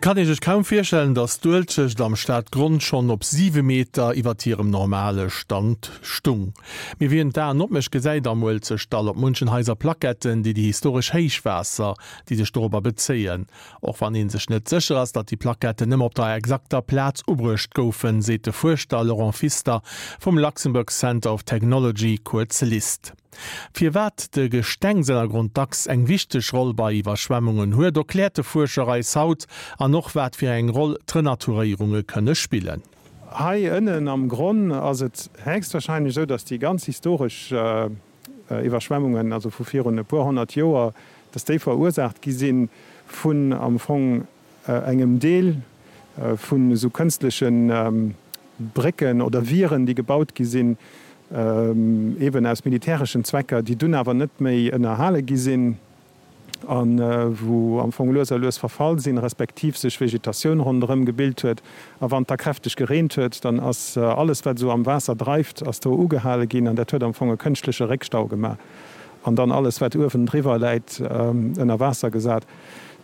kann ee sech kaum virstellen, datt d'Uelzecht am Stadgronn schonn op 7 Meter iwwert hirem normale Stand stung. Mee wien d'Aen opmécht, gesäit am Uelzechtdall op munchen Haiser Plaquetten, déi déi historesch Héichwaasser, déi sech dorobber bezéien. Och wann ee sech net sécher ass, datt déi Plaquetten nëmme op der exakter Plaz ubruecht goufen, seet de Fuerschter Laurent Pfister vum Luxembourg Center of Technology, kuerz LIST. Firwat de Gestengsennergrond dacks eng wichteg Roll bei Iwwerschwemmungen huet, erkläert de Fuerscher eis haut an och wat fir eng Roll d'Renaturéierunge kënne spillen. Hei ënnen am Gronn ass et héchstwahrscheinlech esou, datt déi ganz historesch Iwwerschwemmungen, also vu virun e puer 100 Joer, datt déi verursaacht gi si vun am Fong engem Deel vun esou kënstleche Brécken oder Wieren, déi gebaut gi sinn, eben aus militäreschen Zwecker, déi dunn awer net méi ënnerhale gi sinn a wou am Fong lues a lues verfall sinn, respektiv sech Vegetatioun ronderëm gebilt huet. A wann et da kräfteg gereent huet, dann ass alles, wat esou am Waasser dreift, ass do ugehale ginn an dat huet am Fong e kënschtleche Réckstau gemaach an dann alles, wat uewen driwwer läit, ënner Waasser gesat.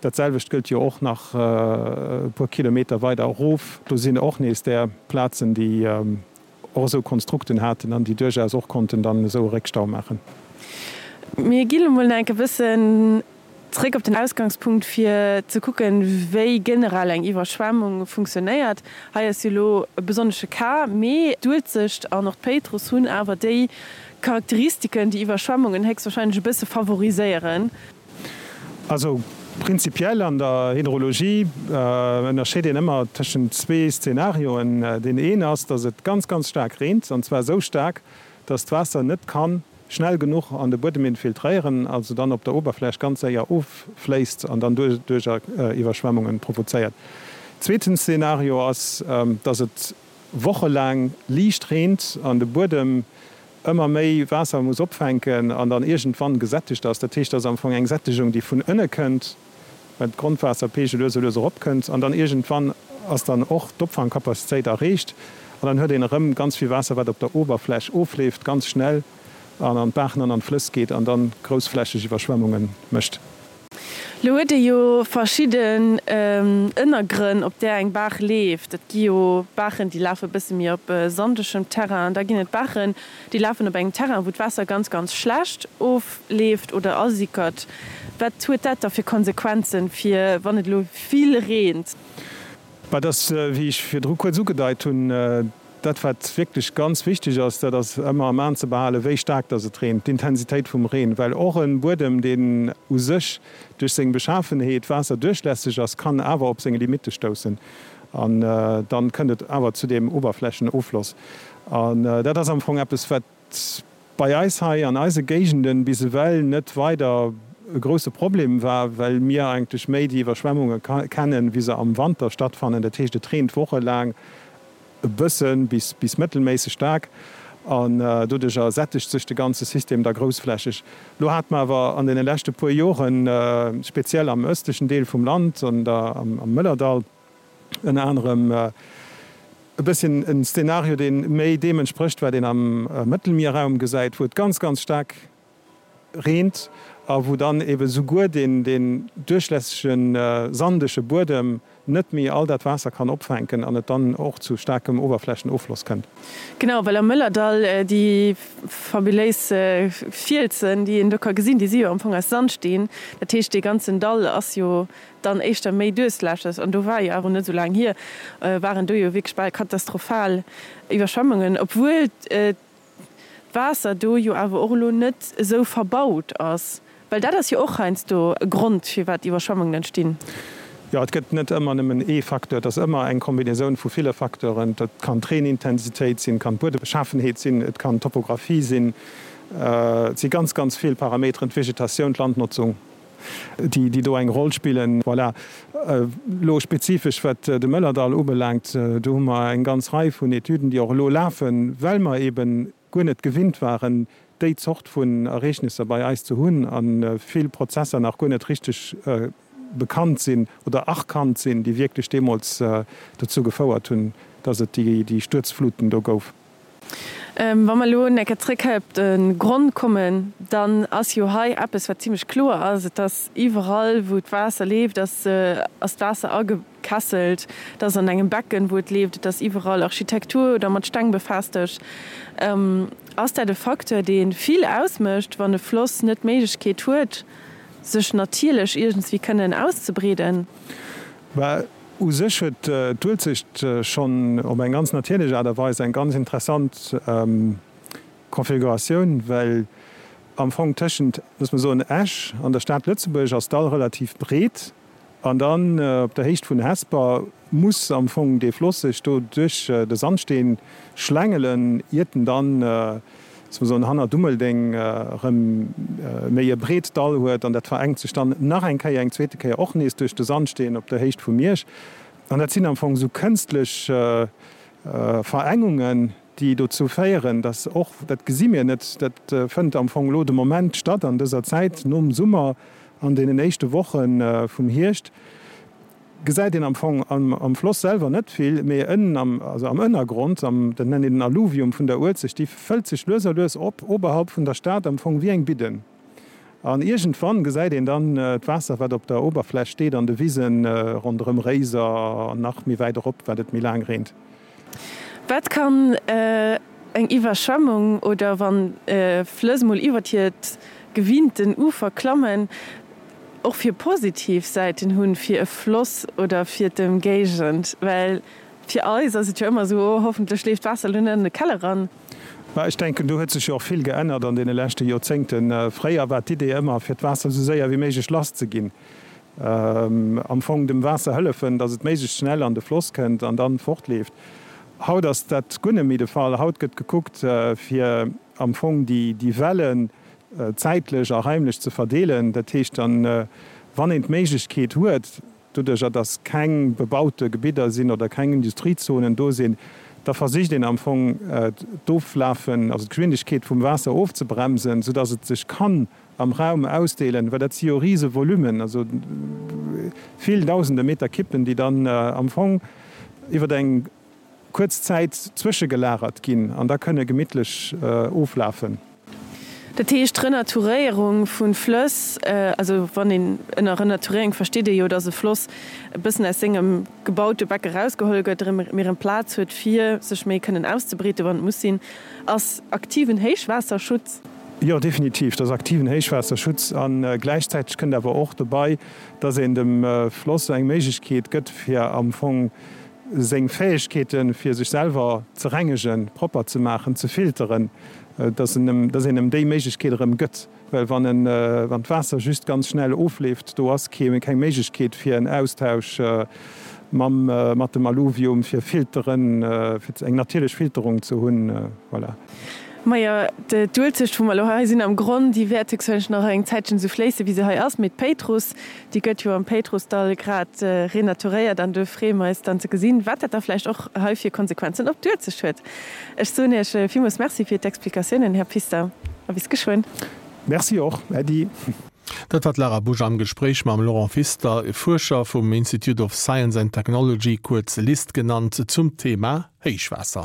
Dat selwecht gëllt jo och nach e puer Kilometer weider erof. Do sinn och nees där Plazen, déi och esou Konstrukten haten an déi duerchaus och konnten dann esou e Réckstau maachen. Mir ginn elo mol nach enke bëssen zréck op den Ausgangspunkt, fir ze kucken, wéi generell eng Iwwerschwemmung funktionéiert. Hei ass jo elo e besonnesche Cas, mee d'Uelzecht an och d'Péitruss hunn awer déi Charakteristiken, déi Iwwerschwemmungen héchstwahrscheinlech e bësse favoriséieren. Also prinzipiell an der Hydrologie ënnerscheet een ëmmer tëschent zwee Szenarioen. Deen een ass, datt et ganz, ganz staark reent, an zwar esou staark, datt d'Waasser net ka schnell genuch an de Buedem infiltréieren, also dann op der Oberfläch ganz séier offléisst an dann doduercher Iwwerschwemmunge provozéiert. Zweeten Szenario ass, datt et wochelaang liicht reent an de Buedem ëmmer méi Waasser muss opfänken an dann iergendwann gesättegt ass. Dat heescht, et ass am Fong eng Sättegung, déi vun ënne kënnt, well d'Grondwaasserpeegel lues a lues eropkënnt an dann iergendwann ass dann och d'Opfangcapacitéit erreecht an dann huet een erëm ganz vill Waasser, wat op der Oberfläch ofleeft, ganz schnell an an d'Baachen an an d'Flëss geet an dann groussflächeg Iwwerschwemmunge mécht. Lo huet ee jo verschidden Ënnergrënn, op där eng Baach leeft. Et gi jo Baachen, déi lafe bësse méi op sandegem Terrain. Da ginn et Baachen, déi lafen op engem Terrain, wou d'Waasser ganz, ganz schlecht ofleeft oder asickert. Wat huet dat da fir Konsequenzen, fir wann et elo vill reent? Bah, et ass, wéi ech virdru kuerz ugedeit hunn, Dat, wat wierklech ganz wichteg ass, dat ass ëmmer am An ze behalen, wéi staark dass et reent, d'Intensitéit vum Reen, well och e Buedem, deen u sech duerch seng Beschafenheet waasserduerchlässeg ass, kann awer op seng Limitte stoussen an dann kënnt et awer zu deem Oberflächenoffloss. An dat ass am Fong eppes, wat bei eis hei an eise Géigenden bis ewell net weider e grousse Problem war, well mir eigentlech méi déi Iwwerschwemmunge kennen, wéi se am Wanter stattfannen. Dat heescht, et reent wochelaang e bësse bis bis mëttelméisseg staark an doduercher sättegt sech de ganze System da groussflächeg. Lo hate mer awer an deene leschte puer Joren, speziell am ëstlechen Deel vum Land, an der am Mëllerdall ënner anerem, e bësschen en Szenario, dee méi deem entsprécht, wat een am Mëttelmierraum gesäit, wou et ganz, ganz staark reent a wou dann ebe souguer deen deen duerchlässege sandege Buedem net méi all dat Waasser kann opfänken an et dann och zu staarkem Oberflächenoffloss kënnt. Genau, well am Mëllerdall déi fabuléis Fielsen, déi een do ka gesinn, déi si jo am Fong aus Sandsteen. Dat heescht, dee ganzen Dall ass jo dann éischter méi duerchlässeg. An do war jo awer net esou laang hier, waren do jo wierklech bal katastrophal Iwwerschwemmungen, obwuel d'Waasser do jo awer och elo net esou verbaut ass, well dat ass jo och heiansdo e Grond, firwat Iwwerschwemmungen entstinn. Jo, et gëtt net ëmmer nëmmen ee Facteur, et ass ëmmer eng Kombinaisoun vu ville Facteuren. Dat kann d'Reenintensitéit sinn, kann d'Buedebeschaffenheet sinn, et kann d'Topographie sinn. Et si ganz, ganz vill Parameteren, d'Vegetatioun, d'Landnotzung. déi do eng Roll spillen. Voilà. Elo spezifesch wat de Mëllerdall ubelaangt, do hu mer eng ganz Rei vun Etüden, déi och elo lafen, well mer eeben guer net gewinnt waren, déi Zort vun Ereegnisser bei eis ze hunn a vill Prozesser nach guer net richteg bekannt sinn oder erkannt sinn, déi wierklech deemools dozou gefouert hunn, dass et déi Stuerzfluten do gouf. Wa mer elo eng Kéier zréck hei op de Gronn kommen, dann ass jo hei eppes, wat zimlech kloer ass, Et ass iwwerall, wou d'Waasser leeft, ass d'Waasser agekesselt. Et ass an engem Becken, wou et leeft. Et ass iwwerall Architektur oder mat Steng befestegt. Ass dat e Facteur, dee vill ausmécht, wann e Floss net d'Méiglechkeet huet, sech natierlech iergendswéi kënnen auszebreeden? Bah, u sech huet d'Uelzecht schonn op eng ganz natierlech Aart a Weis eng ganz interessant Konfiguratioun, well am Fong tëschent, loosse mer soen, Esch an der Stad Lëtzebuerg ass d'Dall relativ breet an dann op der Héicht vun Hesper muss am Fong dee Floss sech do duerch de Sandsteen schlängelen, iert en dann, loosse mer soen, hanner Dummeldeng erëm méi e breet Dall huet an dat verengt sech dann nach eng Kéier, eng zweete Kéier och nees duerch de Sandsteen op der Héicht vu Miersch. An dat sinn am Fong esou kënstlech Verengungen, déi dozou féieren, dass och, dat gesi mir net, dat fënnt am Fong elo de Moment statt an dëser Zäit nom Summer, an deenen éischte Woche vum Hierscht, gesäit een am Fong am Floss selwer net vill, mee ënnen am, also am Ënnergrond, am, dat nennt een den Alluvium vun der Uelzecht, déi fëllt sech lues a lues op, oberhalb vun der Stad, am Fong wéi eng Bidden. An iergendwann gesäit een dann d'Waasser, wat op der Oberfläch steet, an de Wisen ronderëm Réiser an nach méi wäit erop, wat et méi laang reent. Wat kann eng Iwwerschwemmung oder wann Flëss mol iwwert hiert gewinnten Ufer klammen, och fir positiv Säiten hunn fir e Floss oder fir d'Ëmgéigend? Well fir eis ass et jo ëmmer esou, oh hoffentlech leeft d'Waasser elo net an de Keller eran. Mä ech denken, do huet sech jo och vill geännert an deene leschte Joerzéngten. Fréier war d'Idee ëmmer, fir d'Waasser esou séier wéi méiglech lasszeginn. Am Fong dem Waasser hëllefen, datt et méiglechst schnell an de Floss kënnt an dann fortleeft. Haut ass dat guer net méi de Fall. Haut gëtt gekuckt, fir am Fong déi Wellen zäitlech a raimlech ze verdeelen. Dat heescht dann, wann een d'Méiglechkeet huet, doduercher datt keng bebaute Gebidder sinn oder keng Industriezonen do sinn, da versicht een am Fong d'Oflafen, also d'Geschwindegkeet vum Waasser ofzebremsen, soudatt et sech kann am Raum ausdeelen, well dat si jo rise Volumen, also vill dausende Meter Kippen, déi dann am Fong iwwer eng kuerz Zäit zwëschegelagert ginn an da kënne gemittlech oflafen. Dat heescht, d'Renaturéierung vu Flëss, also wann een ënner Renaturéierung versteet ee jo, datt e Floss e bëssen aus sengem gebaute Becke erausgeholl gëtt, erëm méi erëm Plaz huet fir sech méi kënnen auszebreeten, wann et muss sinn, ass aktiven Héichwaasserschutz. Jo, definitiv, dat ass aktiven Héichwaasserschutz. A gläichzäiteg kënnt awer och dobei, datt een dem Floss eng Méiglechkeet gëtt, fir am Fong seng Fäegkeeten, fir sech selwer ze rengegen, propper ze maachen, ze filteren, dass en em, dass een em déi Méiglechkeet erëm gëtt. Well wann en, wann d'Waasser just ganz schnell ofleeft, do ass kee, keng Méiglechkeet fir en Austausch mam, mat dem Alluvium, fir Filteren, fir eng natierlech Filterung ze hunn. Voilà. Majo, d'Uelzecht, wou mer elo hei sinn am Gronn, déi wäert héchstwahrscheinlech nach eng Zäitchen esou fléissen, wéi se hei ass. Mee d'Péitruss, déi gëtt jo am Péitrussdall grad renaturéiert an do freeë mer eis dann ze gesinn, wat dat da vläicht och hei fir Konsequenzen op d'Uelzecht huet. Ech soen Iech villmools Merci fir d'Explikatiounen, Här Pfister, a bis geschwënn. Merci och, Äddi. Dat war d'Lara Busch am Gespréich mam Laurent Pfister, Fuerscher vum Institute of Science and Technology, kuerz LIST genannt, zum Thema Héichwaasser.